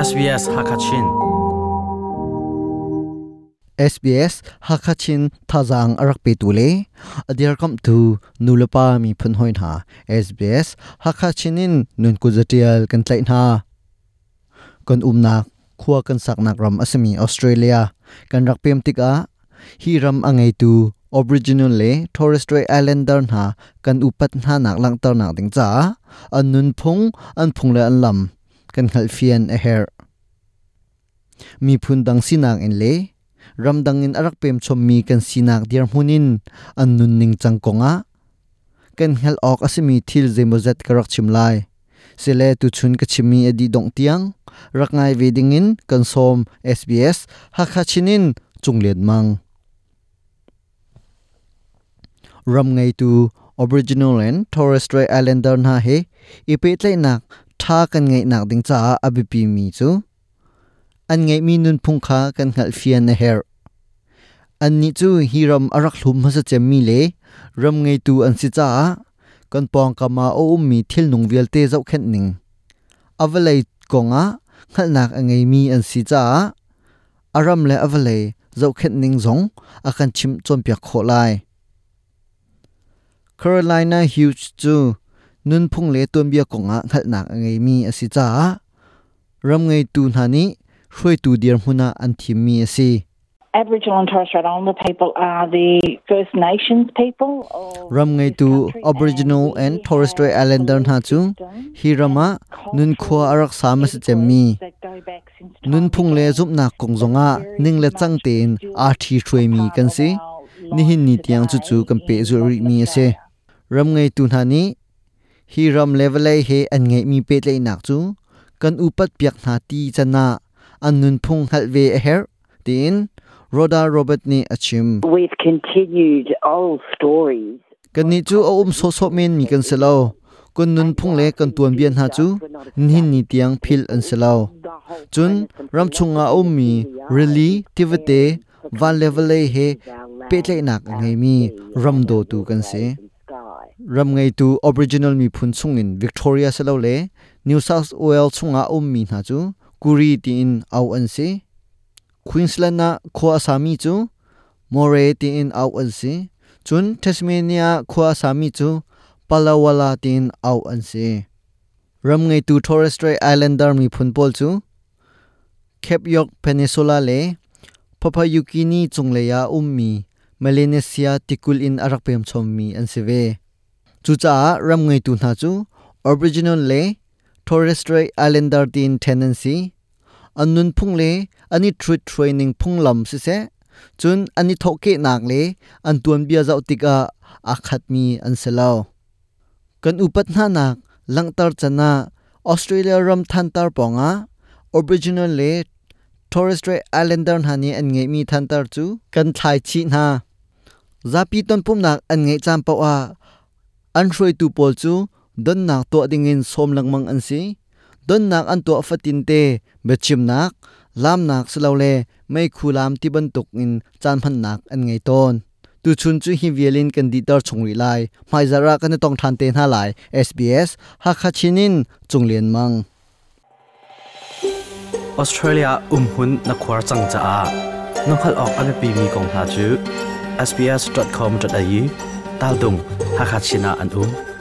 SBS Hakachin. SBS Hakachin thazaang a rak petu le a dirkamhtu nulepa miphun hawi hna SBS Hakachin in nun kuzatial kan tlaih hna. Kan umnak khua kan saknak ram a simi Australia kan rak pem tikah hi ram a ngeitu Aboriginal le Torres Strait Islander hna kan upat hna nak langhternak ding caah an nunphung an phung le an lam kan hngalhfian a herh. Miphun dang sinak in le ramdang in a rak pem chommi kan sinak dirhmun in an nunning cang kongah kan hngalh awk a simi thil zeimawzat ka rak chim lai. Sile tuchun ka chimmi a dih dongh tiang rak ngai ve dingin kan sawm SBS Hakha Chin in Cung Lian Mang. Ram ngeitu Aboriginal and Torres Strait Islander hna he i pehtlaihnak ṭha kan ngeihnak ding caah a biapimi cu an ngeihmi nunphung kha kan hngalhfian a herh. Annih cu hi ram a rak hlum hmasa cemmi le ram ngeitu an si caah kan pawngkam ah a ummi thilnung vialte zohkhenh ning a vawlei kongah hngalhnak a ngeimi an si caah a ram le a vawlei zohkhenh ning zong a kan chimh cawnpiak khawh lai. Carolina Hughes cu nunphung le tuanbia kongah hngalhnak a ngeimi a si caah ram ngeitu hna nih hruaitu dirhmun ah an thimmi a si. Aboriginal and Torres Strait Islander people are the First Nations people of Ram ngeitu Aboriginal and Torres Strait Islander hna cu hi ram ah nunkhua a rak sa hmasa cemmi nunphung le zumhnak kong zongah ning le cang tein aa ṭhi hruaimi kan si. Nihin ni tiang cucu kan pehzulh rihmi a si. Ram ngeitu hna nih hi ram le vawlei he an ngeihmi pehtlaihnak cu kan upat piak hna ti can ah an nunphung hngalh ve a herh tiin Rhoda Robert nih a chim. We've continued old stories. Kannih cu a um sawhsawh menmi kan si lo. Kan nunphung le kan tuanbia hna cu nihin ni tiang philh an si lo. Cun ramchung ah a ummi rili, tivate, van le vawlei he pehtlaihnak a ngeimi ram dawtu kan si. Ram ngeitu Aboriginal miphun chungin Victoria silole New South Wales chungah a ummi hna cu Kuri tiin auh an si. Queensland ah khua a sami cu Murray tiin auh an si. Cun Tasmania ah khua a sami cu Palawala tiin auh an si. Ram ngeitu Torres Strait Islander miphun pawl cu Cape York Peninsula le Papua New Guinea cunglei ah ummi Melanesia tikulh in a rak pem chommi an si ve. Cucaah ram ngeitu hna cu Aboriginal le Torres Strait Islander tiin ṭhen an si. An nunphung le an i ṭhut ning phunglam siseh, cun an i thawhkehnak le an tuanbia zoh tikah aa khatmi an si lo. Kan upat hnanak langhter can ah Australia ram thantar pawngah Aboriginal le Torres Strait Islander hna nih an ngeihmi thantar cu kan thlai chih hna. Zapi tonpumhnak an ngeih caan paoh ah an hruaitu pawl cu donnak tuah dingin sawm lengmang an si. Donnak an tuah fatinte biachimnak, laamnak silole meikhu laam ti bantuk in caan hmannak an ngei tawn. Tuchun cu hi vial in kan dihter chung rih lai. Hmaizarh ah kan i tong ṭhan te hna lai. SBS Hakha Chin in Cung Lian Mang. Australia umhmun na khuar cang caah na hngalh awk a biapimi kong hna cu sbs.com.au tal dung Hakha Chin ah an um.